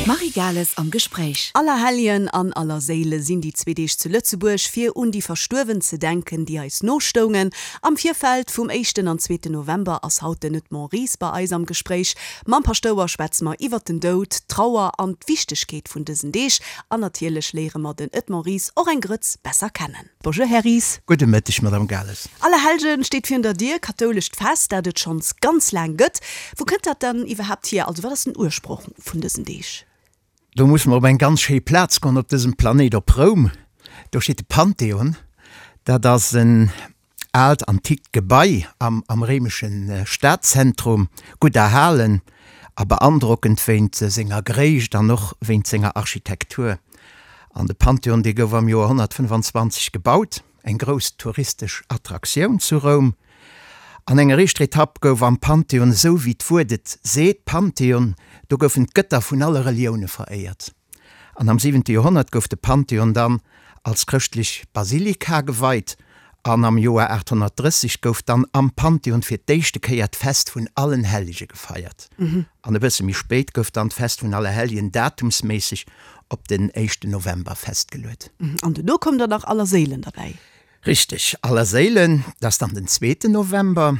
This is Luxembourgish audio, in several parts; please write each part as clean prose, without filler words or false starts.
D'Marie Gales am Gespréich. Allerhelljen an Allerséile sinn déi zwee Deeg zu Lëtzebuerg, fir un déi Verstuerwen ze denken, déi eis nostoungen. Am Virfeld vum éischten an zweeten November ass haut den Edmond Ries bei eis am Gespréich. Mam Paschtouer schwätze mer iwwert den Doud, d'Trauer an d'Wichtegkeet vun dësen Deeg. An natierlech léiere mer den Edmond Ries och eng Grëtz besser kennen. Bonjour Här Ries. Gudde Mëtteg Madame Gales. Allerhellgen steet virun der Dier, kathoulescht Fest, dat et schonns ganz laang gëtt. Wou kënnt dat dann iwwerhaapt hier? Also wat ass den Ursproch vun dësen Deeg? Do musse mer op eng ganz schéi Plaz goen op dësem Planéit, op Roum. Do steet de Pantheon. Dat ass en aalt antikt Gebai am am réimesche Stadzentrum, gutt erhalen a beandrockend wéint senger Gréisst an och wéint senger Architektur. An de Pantheon, dee gouf am Joer 125 gebaut, eng grouss touristesch Attraktioun zu Roum. An enger éischter Etapp gouf am Pantheon, esou wéi d'Wuert et seet, Pantheon, do goufen d'Gëtter vun alle Relioune veréiert. An am siwente Joerhonnert gouf de Pantheon dann als chrëschtlech Basilika geweit an am Joer 830 gouf dann am Pantheon fir d'éischte Kéier d'Fest vun allen Hellege gefeiert. An e bësse méi spéit gouf dann d'Fest vun Allerhelljen datumsméisseg op den éischten November festgeluet. An duerno koum dann nach Allerséilen derbäi. Richteg, Allerséilen, dat ass dann den zweeten November.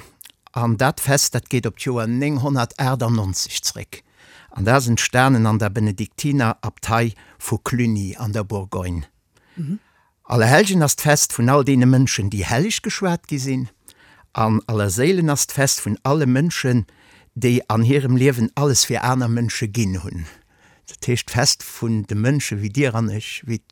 An dat Fest, dat geet op d'Joer 998 zréck. An dat ass entstanen an der Benediktinerabtei vu Cluny an der Bourgogne. Allerhellgen ass d'Fest vun all deene Mënschen, déi helleg geschwat gi sinn. An Allerséilen ass d'Fest vun alle Mënschen, déi an hirem Liewen alles fir aner Mënsche ginn hunn. Dat heescht d'Fest vun de Mënsche wéi dir an ech, wéi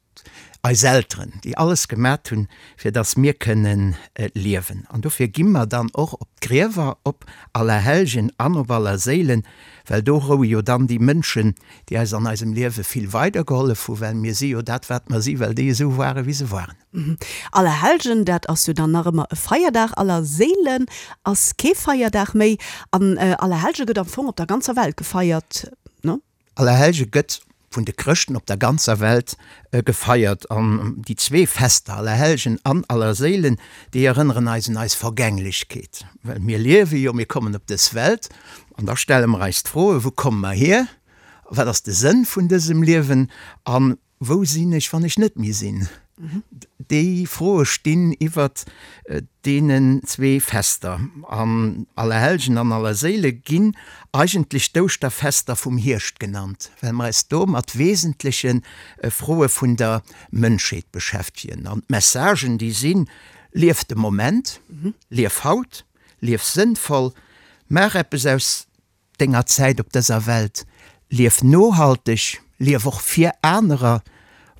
eis Elteren, déi alles gemat hunn, fir datt mir kënnen liewen. An dofir gi mer dann och op d'Griewer op Allerhellgen an op Allerséilen, well do roue jo dann déi Mënschen, déi eis an eisem Liewe vill weidergehollef hu, well mir si jo dat, wat mer si, well déi esou ware wéi se waren. Allerhellgen, dat ass jo dann nach ëmmer e Feierdag, Allerséilen ass kee Feierdag méi an Allerhellge gëtt am Fong op der ganzer Welt gefeiert, ne? Allerhellge gëtt vun de Chrëschten op der ganzer Welt gefeiert. An déi zwee Fester, Allerhellgen an Allerséilen, déi erënneren eis un eis Vergänglechkeet. Well mir liewe jo, mir kommen op dës Welt an da stelle mer eis d'Froen, Wou komme mer hier? Wat ass de Sënn vun dësem Liewen? An Wou sinn ech, wann ech net méi sinn? Déi Froe stinn iwwert deenen zwee Fester. An Allerhellgen an Allerséile ginn eigentlech d'Ouschterfester vum Hierscht genannt, well mer eis do mat wesentleche Froe vun der Mënschheet beschäftegen. An d'Messagen, déi sinn, Lief de Moment, lief haut, lief sënnvoll, maach eppes aus denger Zäit op dëser Welt. Lief nohalteg, lief och fir anerer.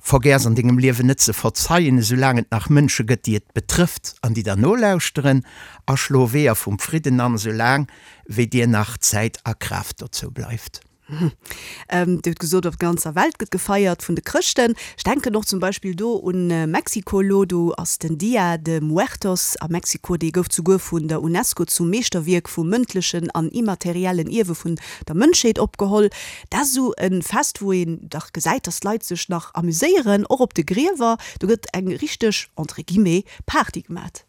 Vergäss an dengem Liewen net ze verzeien, esou laang et nach Mënsche gëtt, déi et betrëfft an déi der nolauschteren. A schlo Weeër vum Fridden an, esou laang wéi dir nach Zäit a Kraaft dozou bleift. Dir hutt gesot, op der ganzer Welt gëtt gefeiert vun de Chrëschten. Ech denken och zum Beispill do un Mexiko elo. Do ass den Dia de Muertos a Mexiko, dee gouf zuguer vun der Unesco zum Meeschterwierk vum mëndlechen an immateriellen Ierwe vun der Mënschheet opgeholl. Dat ass esou e Fest, wou een dach gesäit, datt d'Leit sech nach amuséieren, och op de Griewer. Do gëtt eng richteg, entre guillemets, Party gemat.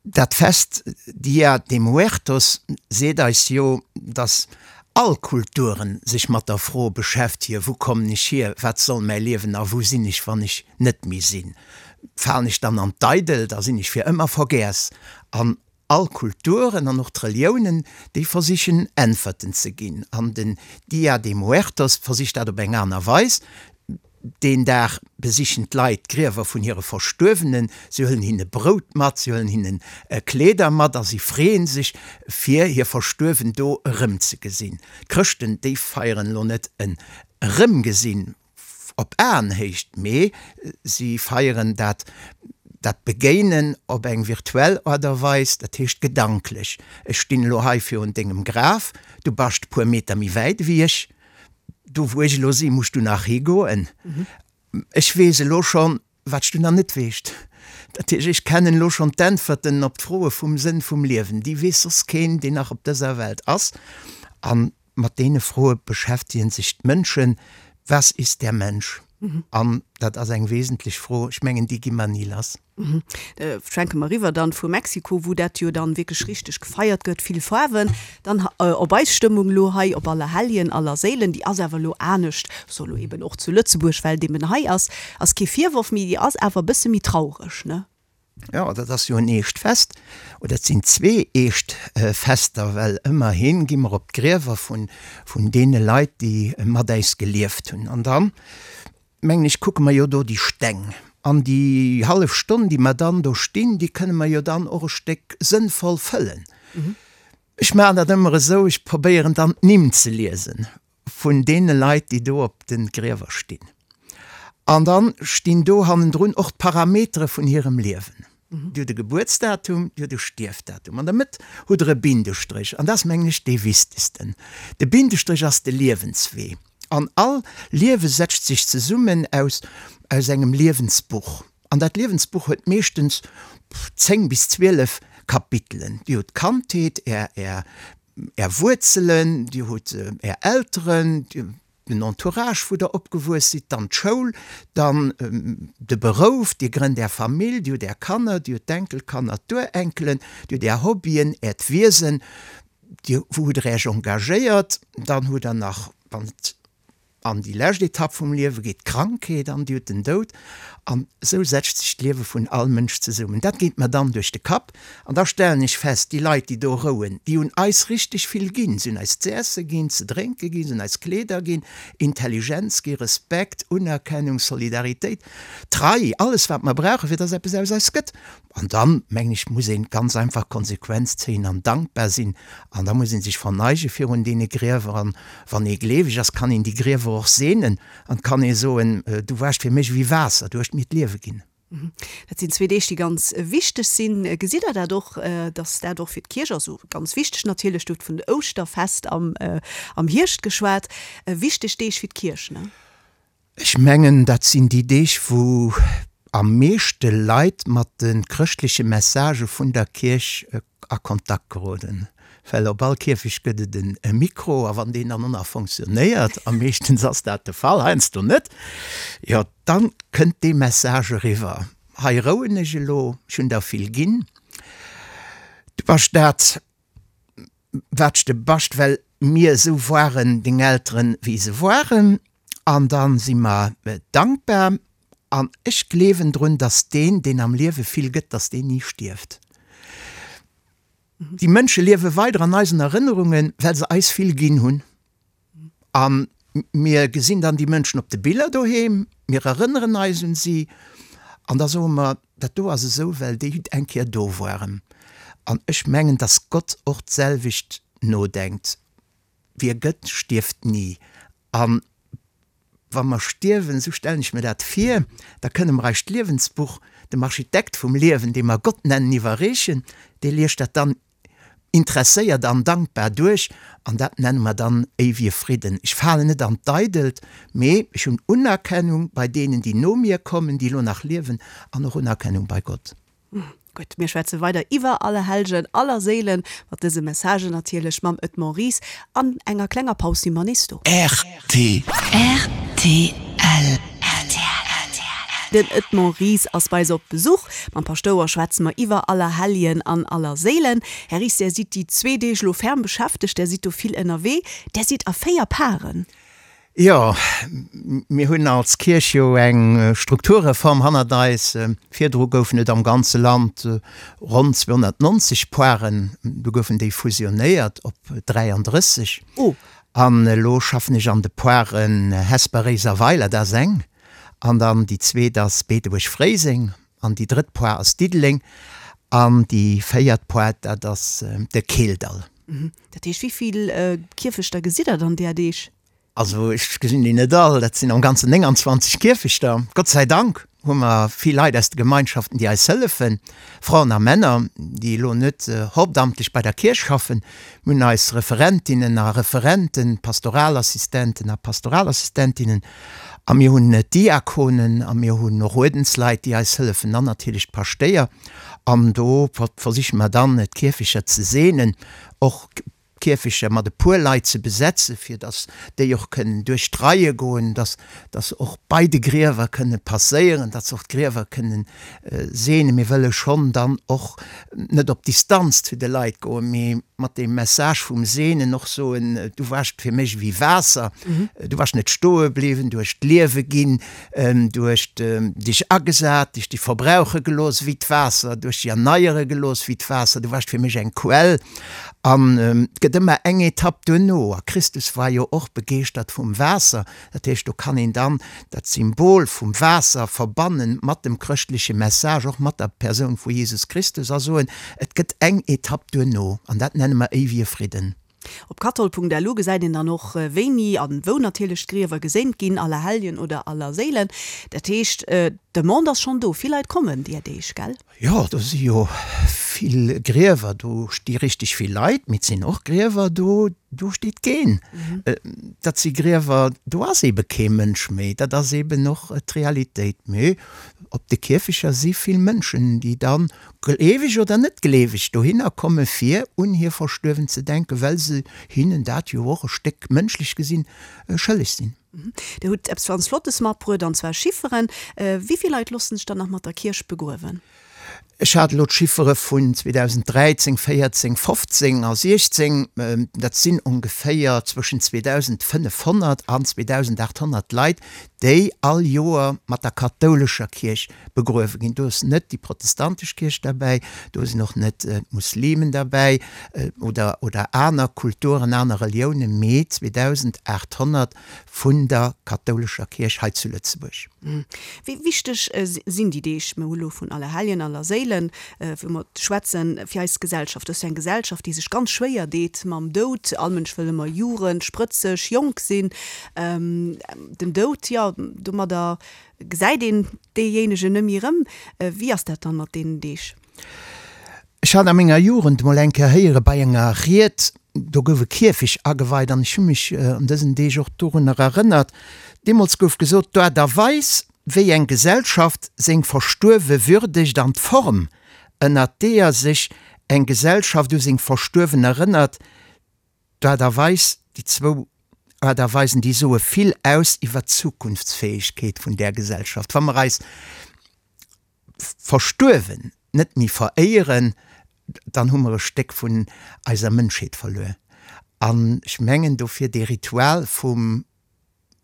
Dat Fest Dia de Muertos seet eis jo, dass all Kulturen sech mat der Fro beschäftegen, Wou kommen ech hier, wat soll mäi Liewen a wou sinn ech, wann ech net méi sinn? Falen ech dann an d'Eidelt a sinn ech fir ëmmer vergäss? An all Kulturen an och d'Reliounen, déi versichen Äntwerten ze ginn. An den Dia de Muertos versicht dat op eng aner Weis. Deen Dag besichen d'Leit d'Griewer vun hire Verstuerwenen, si huelen hinne Brout mat, si huelen hinne Kleeder mat a si freeën sech, fir hir Verstuerwen do erëmzegesinn. D'Chrëschten, déi feieren elo net en Erëmgesinn op Aenhéicht, mee si feieren dat dat Begéinen op eng virtuell Aart a Weis, dat heescht gedanklech. Ech stinn elo hei virun dengem Graf, du bascht e puer Meter méi wäit ewéi ech. Do wou ech elo sinn, muss du nach higoen. Ech weess elo schonn, wat s du nach net weescht. Dat heescht, ech kennen elo schonn d'Äntwerten op d'Froe vum Sënn vum Liewen. Déi weess soss keen, deen nach op dëser Welt ass. A mat deene Froe beschäftegen sech d'Mënschen, Was ist der Mensch? An dat ass eng wesentlech Fro. Ech mengen, déi gi mer ni lass. Schwenke mer eriwwer dann vu Mexiko, wou dat jo dann wierklech richteg gefeiert gëtt, vill Faarwen, dann op eis Stëmmung elo hei op Allerhelljen, Allerséilen. Déi ass awer elo anescht, so elo eben och zu Lëtzebuerg, well et eben hei ass, ass kee Virworf, mee déi ass awer e bësse méi traureg, ne? Jo, dat ass jo en eescht Fest, oder et sinn zwee eescht Fester, well ëmmerhi gi mer op d'Griewer vun, vun deene Leit, déi mat äis gelieft hunn. An dann, mengen ech, kucke mer jo do déi Steng. An déi hallef Stonn, déi mer dann do stinn, déi kënne mer jo dann och e Stéck sënnvoll fëllen. Ech maachen dat ëmmer esou, ech probéieren dann d'Nimm ze liesen vun deene Leit, déi do op de Griewer stinn. An da stinn do hannendrun och d'Parametere vun hirem Liewen. Dir hutt e Gebuertsdatum, Dir hutt e Stierfdatum. An der Mëtt hutt Der e Bindestréch. An dat ass, mengen ech, dee wichtegsten. De Bindestréch ass de Liewenswee. An all Liewe setzt sech zesummen aus aus engem Liewensbuch. An dat Liewensbuch huet meeschtens 10 bis 12 Kapitelen. Dir hutt d'Kandheet, Är, Är Är Wuerzelen, Dir hutt Är Elteren, den Entourage, wou Der opgewuess sidd, dann d'Schoul, dann de Berouf, Dir grënnt Är Famill, Dir hutt Är Kanner, Dir hutt d'Enkelkanner, d'Urenkelen, Dir hutt Är Hobbyen, Äert Wiesen, Dir, wou hutt Der Äech engagéiert, dann hutt Der nach, wann et An déi lescht Etapp vum Liewe geet d'Krankheet an, déi huet den Doud. An esou setzt sech d'Liewe vun all Mënsch zesummen. Dat geet mer dann duerch de Kapp. An da stellen ech fest, déi Leit, déi do rouen, déi hunn eis richteg vill ginn. Se hunn eis z'esse ginn, ze drénke ginn, se hunn eis Kleeder ginn, Intelligenz gi, Respekt, Unerkennung, Solidaritéit, Trei, alles wat mer brauchen, fir dass eppes aus eis gëtt. An dann, mengen ech, muss een ganz einfach Konsequenz zéien an dankbar sinn. An da muss ee sech verneige virun deene Griewer. An wann ee gleeweg ass, kann een déi Griewer och seenen an kann ee soen, Du waars fir mech ewéi Waasser, du hues mir d'Liewe ginn. Dat sinn zwee Deeg, déi ganz wichteg sinn. Gesitt Der dat och, datt dat och fir d'Kierch, also ganz wichteg natierlech, du hutt vun Ouschterfest am Hierscht geschwat, wichteg Deeg fir d'Kierch, ne? Ech mengen, dat sinn déi Deeg, wou am meeschte Leit mat de chrëschtleche Messagë vun der Kierch a Kontakt geroden. Well op all Kierfecht gëtt et e Mikro, a wann deen dann och nach fonctionnéiert, a meeschtens ass dat de Fall, heiansdo net, jo, da kënnt dee Message eriwwer, Hei rouen ech elo, ech hunn der vill ginn, du bass dat, Wat s de bascht, well mir esou woaren, deng Elteren, wéi se woaren, an dann si mer dankbar. An ech gleewen drun, dass deen, deen am Liewe vill gëtt, dass deen ni stierft. Déi Mënsche liewe weider an eisen Erënnerungen, well se eis vill ginn hunn. A mir gesinn dann déi Mënschen op de Biller doheem, mir erënneren eis un si an da soe mer, dat do ass esou, well déi eng Kéier do waren. An ech mengen, dass Gott och d'selwecht nodenkt, Wie gëtt, stierft ni. A wa mer stierwen, esou stellen ech mir dat vir, da kënne mer eist Liewensbuch dem Architekt vum Liewen, dee mer Gott nennen, iwwerreechen. Dee liest dat dann Interesséiert an dankbar duerch, an dat nenne mer dann éiwege Fridden. Ech falen net an d'Eidelt, mee ech hunn Unerkennung bei deenen, déi no mir kommen, déi elo nach liewen, an och Unerkennung bei Gott. Gutt, mir schwätze weider iwwer Allerhellgen, Allerséilen, mat dëse Messagen natierlech mam Edmond Ries. An enger klenger Paus si mer nees do. RTL. Rtl. Den Edmond Ries ass bei eis op Besuch. Mam Paschtouer schwätze mer iwwer Allerhelljen an Allerséilen. Här Ries, Där sidd déi zwee Deeg elo ferm beschäftegt, Där sidd do vill ënnerwee. Där sidd a 4 Paren. Jo, mir hunn als Kierch jo eng Strukturreform hannert eis. Virdru goufen et am ganze Land ronn 290 Poaren, du goufen déi fusionéiert op 33. Oh. An elo schaffen ech an de Poaren Hesper, Réiser, Weiler, dat ass eng, an dann déi zweet ass Beetebuerg-Fréiseng, an déi drëtt Poar ass Diddeleng, an déi véiert Poar, dat ass de Keeldall. Dat heescht, wéi vill Kierfechter gesitt Der dann där Deeg? Also ech gesinn déi net all, dat sinn am Ganzen 29 Kierfechter. Gott sei Dank hu mer vill Leit aus de Gemeinschaften, déi eis hëllefen, Fraen a Männer, déi elo net hauptamtlech bei der Kierch schaffen. Mir hunn eis Referentinnen a Referenten, Pastoralassistenten a Pastoralassistentinnen a mir hunn d'Diakonen a mir hunn och Uerdensleit, déi eis hëllefen an natierlech d'Paschtéier. An do versiche mer dann, d'Kierfecher ze seenen, och. d'Kierfechter mat e puer Leit ze besetzen, fir datt déi och kënnen duerch d'Reie goen, datt datt se och bei de Griewer kënne passéieren, datt se och d'Griewer kënnen seenen. Mir wëlle schonn dann och net op Distanz zu de Leit goen, mee mat deem Message vum Seenen och soen, Du waascht fir mech ewéi Waasser, du waascht net stoe bliwwen, du hues d'Liewe ginn, du hues dech agesat, dech dech verbrauche gelooss ewéi d'Waasser, du hues dech erneiere gelooss ewéi d'Waasser, du waascht fir mech eng Quell. An et gëtt ëmmer eng Etapp duerno, a Christus war jo och begeeschtert vum Waasser, dat heescht, do kann een dann dat Symbol vum Waasser verbanne mat dem chrëschtleche Message, och mat der Persoun vu Jesus Christus a soen, et gëtt eng Etapp duerno, an dat nenne mer éiwege Fridden. Op kathol.lu gesäit een dann och, wéini an wou natierlech d'Griewer geséint ginn, Allerhelljen oder Allerséilen. Dat heescht, d'Demande ass schonn do, vill Leit kommen deer Deeg, gell? Jo, do si jo vill Griewer, do sti richteg vill Leit, mee et sinn och Griewer do, do steet keen. Dat si Griewer, do ass eebe kee Mënsch méi. Dat ass eeben och d'Realitéit. Mee op de Kierfecher si vill Mënschen, déi da gleeweg oder net gleeweg dohinner komme fir un hir Verstuerwen ze denken, well se hinnen dat jo och e Stéck, mënschlech gesinn, schëlleg sinn. Dir hutt eppes ganz Flottes matbruet, an zwar Chifferen. Wéi vill Leit loossen sech dann nach mat der Kierch begruewen? Ech hat elo d'Chiffere vun 2013, 14, 15 a 16. Dat sinn ongeféier zwëschen 2.500 an 2.800 Leit, déi all Joer mat der kathoulescher Kierch begruewe ginn. Do ass net déi protestantesch Kierch derbäi, do sinn och net d'Muslimen derbäi oder, oder aner Kulturen, aner Reliounen, mee 2.800 vun der kathoulescher Kierch hei zu Lëtzebuerg. Wéi wichteg sinn déi Deeg, mir hu lo vun Allerhelljen, Allerséilen, wou mer schwätzen, fir eis Gesellschaft? Dat ass jo eng Gesellschaft, déi sech ganz schwéier deet mam Doud. All Mënsch wëll ëmmer Jugend, sprëtzeg, jonk sinn. Den Doud, jo, domadder Gesäit een deejéinegen nëmme erëm? Wéi ass dat dann mat deenen Deeg? Ech hat a menger Jugend mol eng Kéier héiere bei enger Ried, do gouf e Kierfech ageweit an ech hu mech an dësen Deeg och dorunner erënnert. Deemools gouf gesot, d'Aart a Weis, wéi eng Gesellschaft seng Verstuerwe würdegt an d'Form, ënnert deeër sech eng Gesellschaft u seng Verstuerwen erënnert, D'Aart a Weis, déi zwou Aart a Weisen, déi soe vill aus iwwert d'Zukunftsfäegkeet vun där Gesellschaft. Wa mer eis Verstuerwen net méi veréieren, dann hu mer e Stéck vun eiser Mënschheet verluer. An ech mengen dofir, dee Ritual vum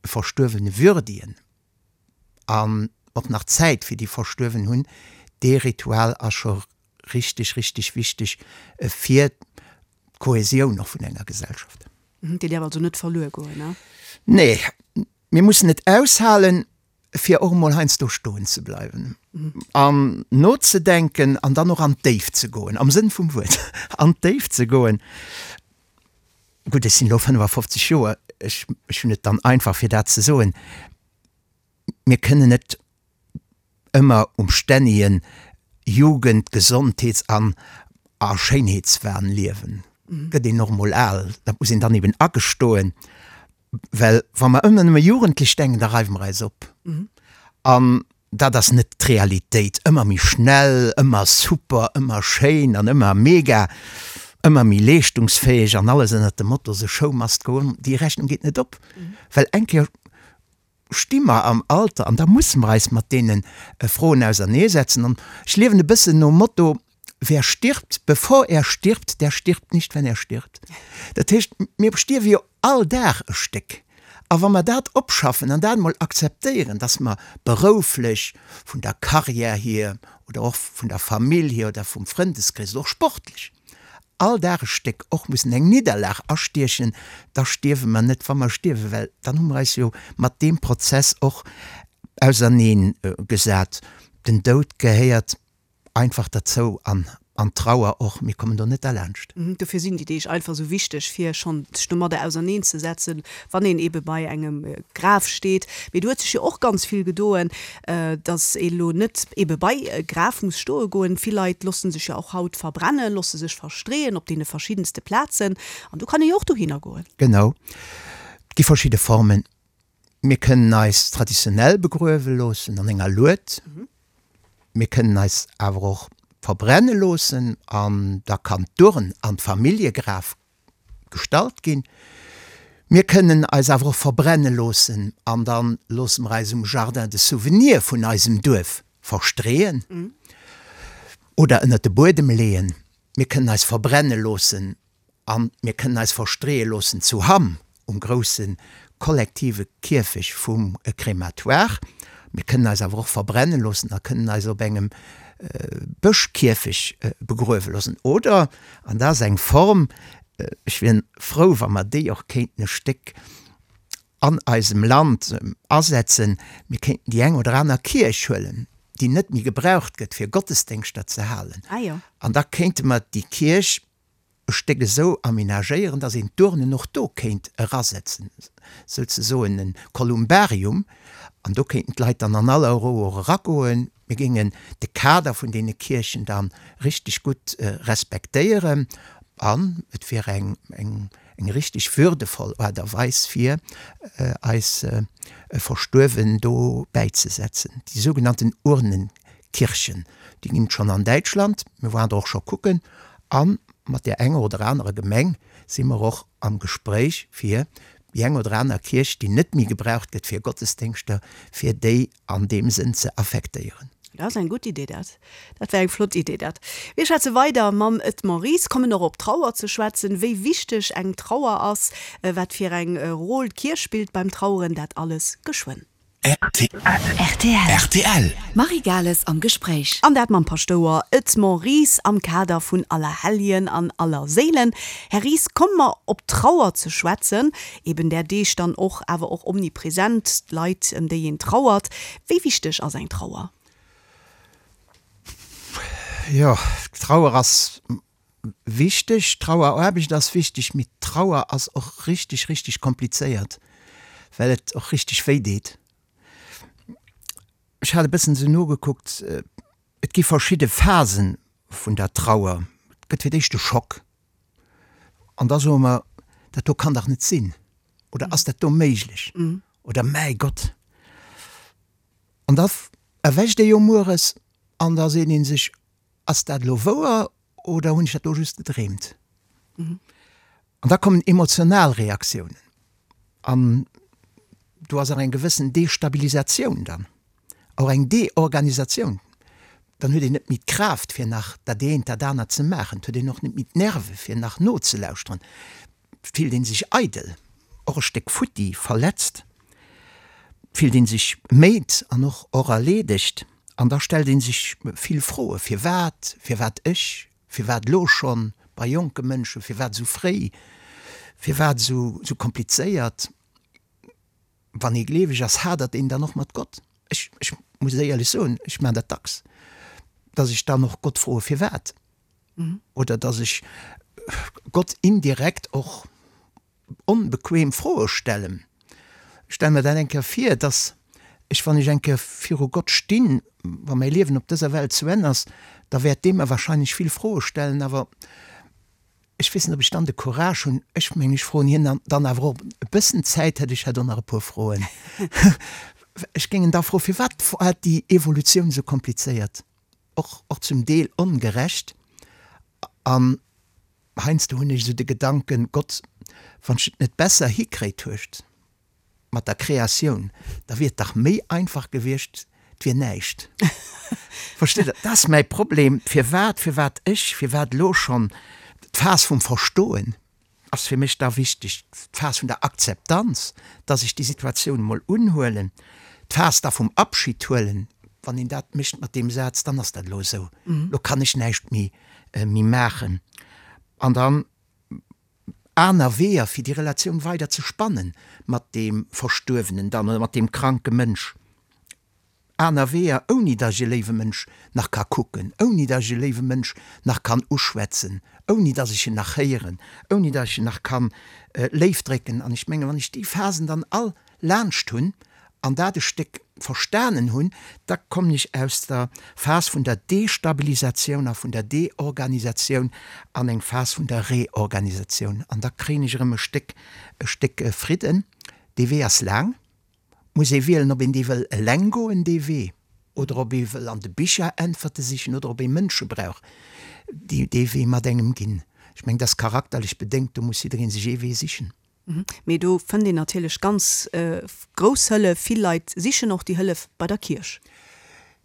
Verstuerwene würdigen an och nach Zäit fir déi Verstuerwen hunn, dee Ritual ass scho richteg, richteg wichteg fir d'Kohäsioun och vun enger Gesellschaft. Déi däerf also net verluer goen, ne? Nee, mir mussen et aushalen, fir och emol heiansdo stoen ze bleiwen an nozedenken an dann och an d'Déift ze goen, am Sënn vum Wuert, an d'Déift ze goen. Gutt, ech sinn elo 55 Joer, ech hunn et dann einfach, fir dat ze soen. Mir kënnen net ëmmer um stännege Jugend-, Gesondheets an a Schéinheetswahn liewen. Gëtt een och emol al, dat muss een dann eben agestoen, well wa mer ëmmer nëmme jugendlech denken, da reiwe mer eis op. An dat ass net d'Realitéit. Ëmmer méi schnell, ëmmer super, ëmmer schéin an ëmmer mega, ëmmer méi leeschtungsfäeg an alles ënnert dem Motto The show must go on, déi Rechnung geet net op, well eng Kéier sti mer am Alter an da musse mer eis mat deene Froen auserneesetzen. An ech liewen e bëssen nom Motto, Wer stirbt, bevor er stirbt, der stirbt nicht, wenn er stirbt. Dat heescht, mir stierwe jo all Dag e Stéck. A wa mer dat opschaffen an dat emol akzeptéieren, dass mer berouflech, vun der Karriär hier oder och vun der Famill hier oder vum Frëndeskrees oder och sportlech, all Dag e Stéck och mussen eng Nidderlag astiechen, da stierwe mer net, wa mer stierwen, well dann hu mer eis jo mat deem Prozess och auserneen gesat. Den Doud gehéiert einfach derzou an an d'Trauer och, mir kommen do net derlaanscht. Dofir sinn déi Deeg einfach esou wichteg, fir schonn sech domadder auserneen ze setzen, wann een eebe bei engem Graf steet. Mee do huet sech jo och ganz vill gedoen, dass ee lo net eebe bei e Graf muss stoe goen. Vill Leit loosse sech jo och haut verbrennen, loosse sech verstreeën op deene verschiddenste Plazen an do kann ee jo och dohinner goen. Genau, et gi verschidde Formen. Mir kënnen eis traditionell begruewe loossen an enger Lued. Mir kënnen eis awer och verbrenne loossen an da kann d'Urn an d'Familljegraf. gestallt ginn. Mir kënnen eis awer och verbrenne loossen an da loosse mer eis um Jardin de Souvenirs vun eisem Duerf verstreeën oder ënnert de Buedem leeën. Mir kënnen eis verbrenne loossen a mir kënnen eis verstreeë loossen zu Hamm um grousse kollektive Kierfech vum Crématoire. Mir kënnen eis awer och verbrenne loossen a kënnen eis op engem Bëschkierfech begruewe loossen. Oder, an dat ass eng Form, ech wier frou, wa mer déi och kéinten e Stéck an eisem Land asetzen, mir kéinten déi eng oder aner Kierch huelen, déi net méi gebraucht gëtt, fir Gottesdéngschter ze halen, an da kéinte mer déi Kierch e Stéck esou aménagéieren, dass een d'Urnen och do kéint erasetzen, souzesoen e Kolumbarium, an do kéinten d'Leit dann an aller Rou och eragoen. Mir géingen de Kader vun deene Kierchen da richteg gutt respektéieren an et wier eng eng richteg würdevoll Aart a Weis fir eis Verstuerwen do bäizesetzen. Déi sougenannten Urnenkirchen, déi ginn et schonn an Däitschland, mir waren der och scho kucken, a mat där enger oder anerer Gemeng si mer och am Gespréich fir déi eng oder aner Kierch, déi net méi gebraucht gëtt fir Gottesdéngschter, fir déi an deem Sënn ze affektéieren. Dat ass eng gutt Idee dat. Dat wär eng flott Idee dat. Mir schwätze weider mam Edmond Ries, kommen och op d'Trauer ze schwätzen, wéi wichteg eng Trauer ass, wat fir eng Rôle d'Kierch spillt beim Traueren, dat alles geschwënn. Rtl. Rtl. Marie Gales am Gespréich. An dat mam Paschtouer Edmond Ries am Kader vun Allerhelljen an Allerséilen. Här Ries, komme mer op d'Trauer ze schwätzen. Eben där Deeg dann och, awer och omnipresent, d'Leit, ëm déi een trauert. Wéi wichteg ass eng Trauer? Jo, d'Trauer ass wichteg, d'Traueraarbecht ass wichteg, mee d'Trauer ass och richteg, richteg komplizéiert, well et och richteg wéi deet. Ech hat e bëssen esou nogekuckt, et gi verschidde Phasen vun der Trauer. Et gëtt fir d'éischt de Schock. An da soe mer, dat do kann dach net sinn oder ass dat do méiglech oder mäi Gott. An da erwächt ee jo mueres an da seet ee sech, ass dat elo wouer oder hunn ech dat do just gedreemt? An da kommen emotional Reaktiounen an do ass och eng gewëssen Destabilisatioun dann, och eng Deorganisatioun. Dann huet een net méi d'Kraaft fir nach dat eent, dat anert ze maachen, et huet een och net méi d'Nerve fir nach nozelauschteren, et fillt ee sech eidel, och e Stéck futti, verletzt, fillt ee sech méid an och och erleedegt. An da stellt ee sech vill Froen, Firwat? Firwat ech? Firwat elo schonn bei jonke Mënschen? Firwat esou fréi? Firwat esou komplizéiert? Wann ee gleeweg ass, hadert een dann och mat Gott. Ech, ech muss éierlech soen, ech maachen dat dacks, datt ech dann och Gott froe firwat. Oder datt ech Gott indirekt och onbequem Froe stellen. Ech stelle mer dat eng Kéier vir, datt ech, wann ech eng Kéier viru Gott stinn, wa mäi Liewen op dëser Welt zu Enn ass, da wäert dee mer wahrscheinlech vill Froe stellen, awer ech weess net, ob ech dann de Courage hunn. Ech mengen, ech froen hien dann awer och e bëssen Zäit hätt, ech hätt och nach e puer Froen. Ech géing en da froen, Firwat war déi Evolutioun esou komplizéiert, och, och zum Deel ongerecht? An heiansdo hunn ech esou de Gedanken, Gott, wann s de et net besser hikréit hues mat der Kreatioun, da wier et dach méi einfach gewiescht, et wier näischt. Versteet Der? Dat ass mäi Problem. Firwat, firwat ech, firwat elo schonn? D'Phas vum Verstoen ass fir mech da wichteg, d'Phas vun der Akzeptanz, dass ech déi Situatioun emol unhuelen, d'Phas da vum Abschid huelen, wann een dat mécht mat deem Saz, dann ass dat elo esou, elo kann ech näischt méi méi maachen. An dann aner Weeër, fir déi Relatioun weider ze spannen mat deem Verstuerwenen dann oder mat deem kranke Mënsch. Aner Weeër, ouni datt ech e léiwe Mënsch nach ka kucken, ouni datt ech e léiwe Mënsch nach kann uschwätzen, ouni datt ech en nach héieren, ouni datt ech en nach kann léif drécken. An ech mengen, wann ech déi Phasen dann all laanscht hunn an dat e Stéck verstanen hunn, da kommen ech aus der Phas vun der Destabilisatioun a vun der Deorganisatioun an eng Phas vun der Reorganisatioun. An da kréien ech erëm e Stéck, e Stéck Fridden. Dee Wee ass laang. Muss ee wielen, ob een dee wëll eleng goen, dee Wee, oder ob ee wëll an de Bicher Äntwerte sichen oder ob ee Mënsche brauch, déi dee Wee mat engem ginn. Ech mengen, dat ass charakterlech bedéngt, do muss jidderee sech ee Wee sichen. Mee do fënnt een natierlech ganz grouss Hëllef. Vill Leit sichen och déi Hëllef bei der Kierch.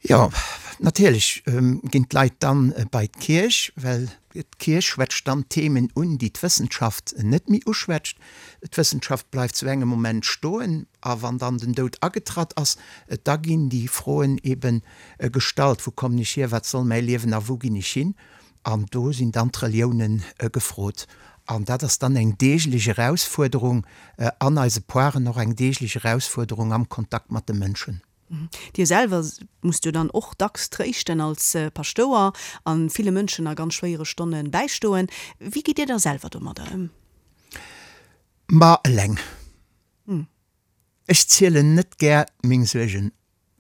Jo, natierlech ginn d'Leit dann bei d'Kierch, well d'Kierch schwätzt dann Themen un, déi d'Wëssenschaft net méi uschwätzt. D'Wëssenschaft bleift zu engem Moment stoen, a wann dann den Doud agetratt ass, da ginn déi Froen ebe gestallt, Wou kommen ech hier, wat soll mäi Liewen a wou ginn ech hin? An do sinn dann d'Reliounen gefrot. An dat ass dann eng deeglech Erausfuerderung an eise Poiren, och eng deeglech Erausfuerderung am Kontakt mat de Mënschen. Dir selwer musst jo dann och dacks tréischten als Paschtouer a ville Mënschen a ganz schwéiere Stonne bäistoen. Wéi gitt Dir da selwer domadder ëm? Ma eleng. Ech zielen net gär meng Suergen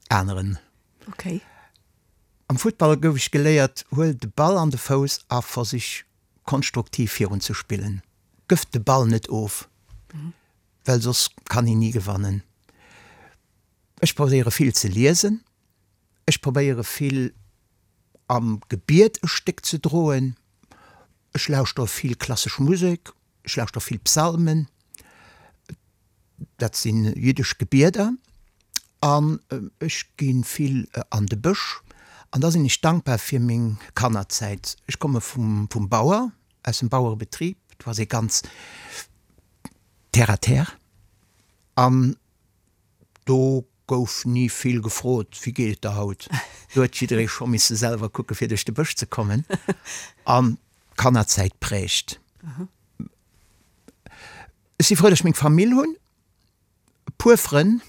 aneren. Okay. Am Futtball gouf ech geléiert, huel de Ball an de Fouss a versich konstruktiv virun ze spillen. Gëff de Ball net of, well soss kann een ni gewannen. Ech probéiere vill ze liesen, ech probéiere vill am Gebiet e Stéck ze droen, ech lauschtere vill klassesch Musek, ech lauschtere vill Psalmen, dat si jiddesch Gebieder, an ech gi vill an de Bësch. An da sinn ech dankbar fir meng Kannerzäit. Ech komme vum Bauer, aus dem Bauerebetrib, do ass ee ganz terre à terre an Do gouf ni vill gefrot, Wéi geet et der haut? Do huet jidderee scho misse selwer kucke fir duerch de Bësch ze kommen. An d'Kannerzäit prägt. Ech si frou, datt ech meng Famill hunn, e puer Frënn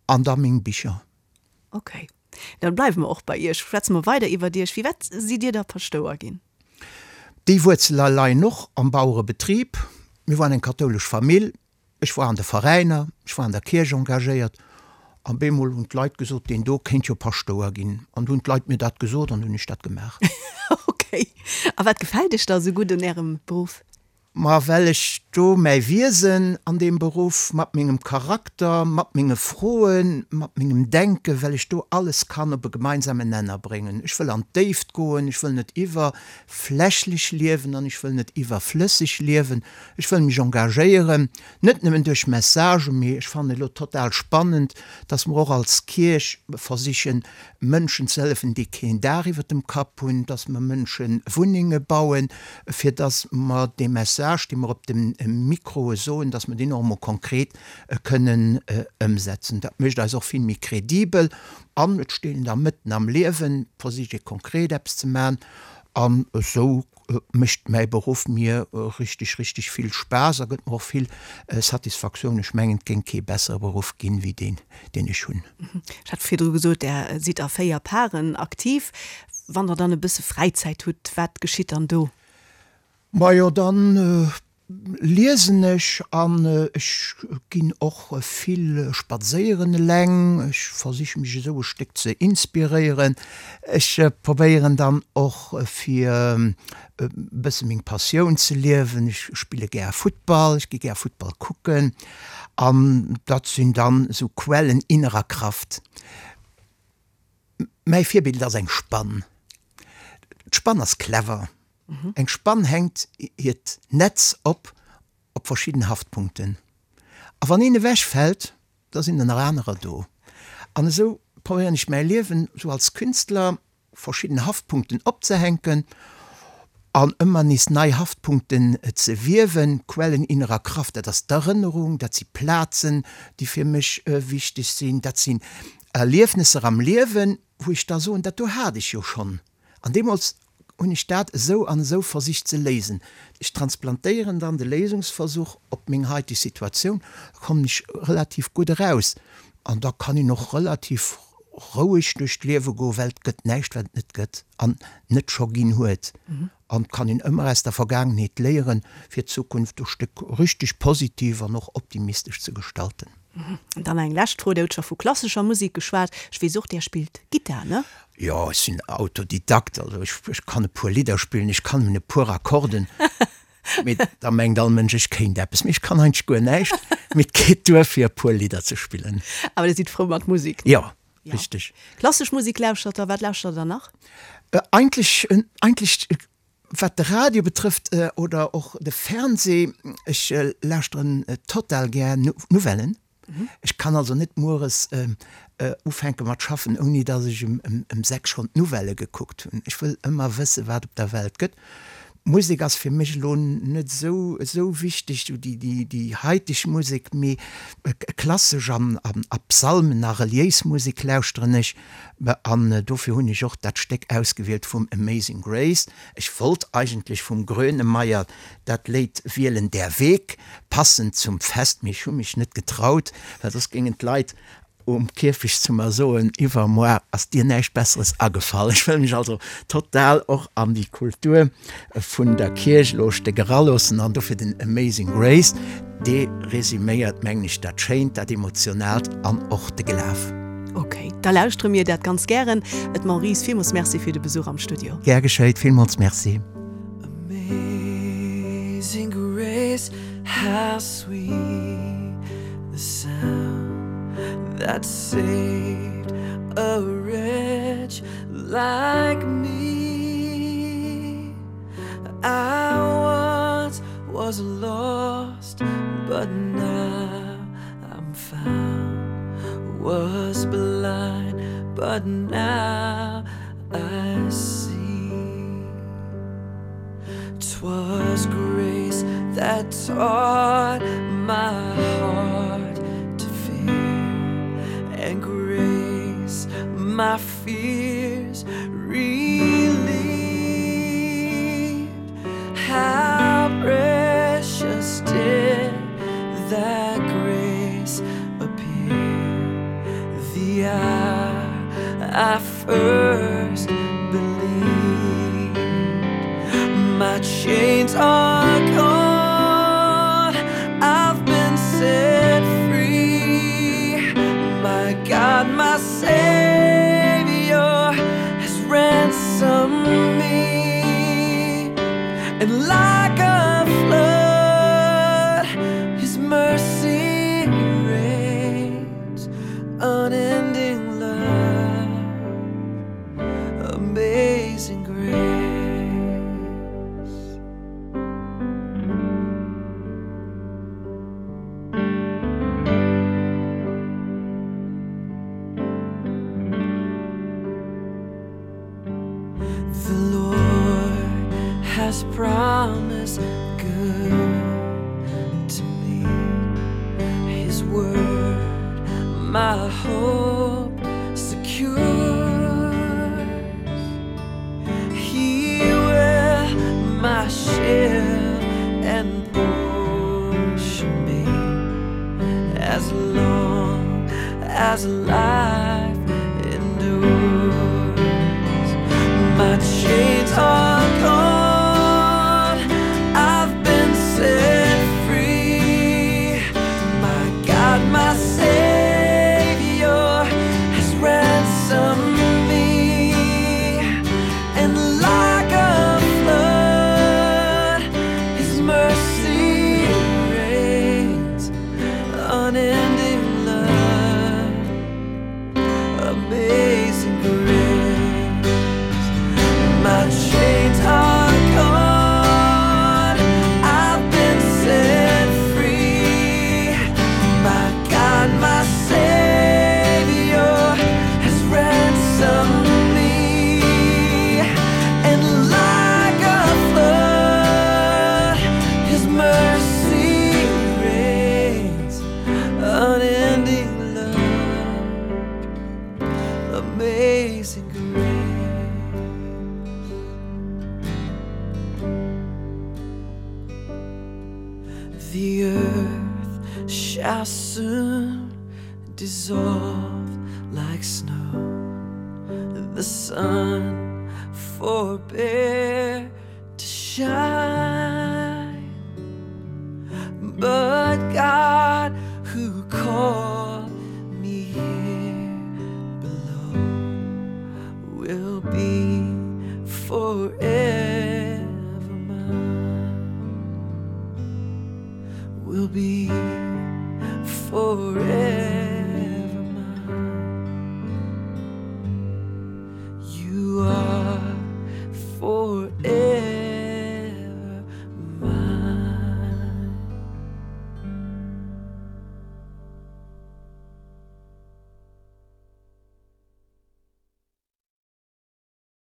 an da meng Bicher. Ok, da bleiwe mer och bei Iech. Schwätze mer weider iwwert Iech. Firwat sidd Dir da Paschtouer ginn? Déi Wuerzele leien och am Bauerebetrib. Mir waren eng kathoulesch Famill. Ech war an de Veräiner, ech war an der Kierch engagéiert an bemol hunn d'Leit gesot, deen do kéint jo Paschtouer ginn. An du hunn d'Leit mir dat gesot an du hunn ech dat gemaach. Ok. A wat gefält Iech da esou gutt un Ärem Beruff? Ma well ech do mäi Wiesen an deem Beruff, mat mengem Charakter, mat menge Froen, mat mengem Denken, well ech do alles kann op e gemeinsamen Nenner bréngen. Ech wëll an d'Déift goen, ech wëll net iwwerflächlech liewen an ech wëll net iwwerflësseg liewen. Ech wëll mech engagéieren, net nëmmen duerch Messagen, mee ech fannen elo total spannend, dass mer och als Kierch versichen, Mënschen ze hëllefen, déi keen Daach iwwert dem Kapp hunn, dass mer Mënsche Wunnenge bauen, fir dass mer dee Message, dee mer op de Mikroe soen, dass mer deen och emol konkret kënnen ëmsetzen. Dat mécht eis och vill méi kredibel an et steet een da mëtten am Liewen, versicht ee konkret eppes ze maachen an esou mécht mäi Beruff mir richteg, richteg vill Spaass a gëtt mer och vill Satisfaktioun. Ech mengen, et géing kee bessere Beruff ginn, wéi deen, deen ech hunn. Ech hat virdru gesot, Der sidd a 4 Paren aktiv. Wann Der dann e bësse Fräizäit hutt, wat geschitt dann do? Majo, dann Liesen ech an ech ginn och vill spadséieren eleng. Ech versiche mech esou e Stéck ze inspiréieren. Ech probéieren dann och fir e bësse meng Passioun ze liewen. Ech spille gär Futtball, ech gi gär Futtball kucken an dat sinn dann esou Quellen innerer Kraft. Mäi Virbild ass eng Spann. D'Spann ass clever. Eng Spann hänkt hiert Netz op op verschidden Haftpunkten. A wann een ewech fält, da sinn der nach anerer do. An esou probéieren ech mäi Liewen esou als Künstler verschidden Haftpunkten opzehänken an ëmmer nees nei Haftpunkten ze wiewen. Quellen innerer Kraft, dat ass d'Erënnerung, dat si Plazen, déi fir mech wichteg sinn, dat sinn Erliefnesser am Liewen, wou ech da soen, dat do hat ech jo schonn. An deemools hunn ech dat esou an esou versicht ze léisen. Ech transplantéieren dann de Léisungsversuch op meng haiteg Situatioun, da kommen ech relativ gutt eraus an da kann een och relativ roueg duerch d'Liewe goen, well et gëtt näischt, wat et net gëtt an net scho ginn huet. An et kann een ëmmer aus der Vergaangenheet léieren, fir d'Zukunft e Stéck richteg positiv an och optimistesch ze gestalten. An dann eng lescht Fro, Dir hutt scho vu klassescher Musek geschwat. Ech weess och, Där spillt Gittar, ne? Jo, ech sinn Autodidakt, also ech, ech kann e puer Lidder spillen, ech kann nëmmen e puer Akkorden, mee da mengt all Mënsch, ech kéint eppes, mee ech kann eigentlech guer näischt, mee et geet duer, fir e puer Lidder ze spillen. Awer Dir sidd frou mat Musek, ne? Jo, richteg. Klassesch Musek lauschtert Der, wat lauschtert Der nach? Eigentlech, eigentlech. Wat de Radio betrëfft oder och de Fernseh, ech lauschteren total gär Nouvellen. Ech kann also net mueres ufänke mat schaffen, ouni datt ech ëm 6 schonn d'Nouvellë gekuckt hunn. Ech wëll ëmmer wësse wat op der Welt gëtt. Musek ass fir mech elo net esou esou wichteg, esou déi déi déi haiteg Musek, mee klassesch an a Psalmen a reliéis Musek lauschteren ech. An dofir hunn ech och dat Stéck ausgewielt vum Amazing Grace. Ech wollt eigentlech vum Grönemeyer dat Léid wielen, Der Weg, passend zum Fest, mee ech hu mech net getraut, well soss géingen d'Leit um Kierfecht zu mer soen, Iwwermoar ass dir näischt Besseres agefall. Ech wëll mech also total och an déi Kultur vun der Kierch elo e Stéck eraloossen an dofir den Amazing Grace, dee resüméiert, mengen ech, dat Schéint, dat Emotionaalt an och de Glaf. Ok, da lauschtere mir dat ganz gären. Et Maurice, villmools Merci fir de Besuch am Studio. Gär geschéit, villmools Merci. Amazing grace, how sweet the sound that saved a wretch like me. I once was lost, but now I'm found. Was blind, but now I see. 'Twas grace that taught my heart to fear, and grace my fears relieved. How precious did that grace appear the hour I first believed. My chains are gone, I've been set free. My God, my Savior has ransomed me. And like a flood, His mercy rains unending love, amazing grace. The Lord has promised good to me. His word, my hope secures. He will my shield and portion be as long as life endures. My chains are gone, I've been set free. My God, my Savior has ransomed me, and like a flood, His mercy rains unending love, amazing grace. My chains are gone, I've been set free. My God, my Savior has ransomed me, and like a flood, His mercy rains unending love, amazing grace. The earth shall soon dissolve like snow. The sun forbear to shine.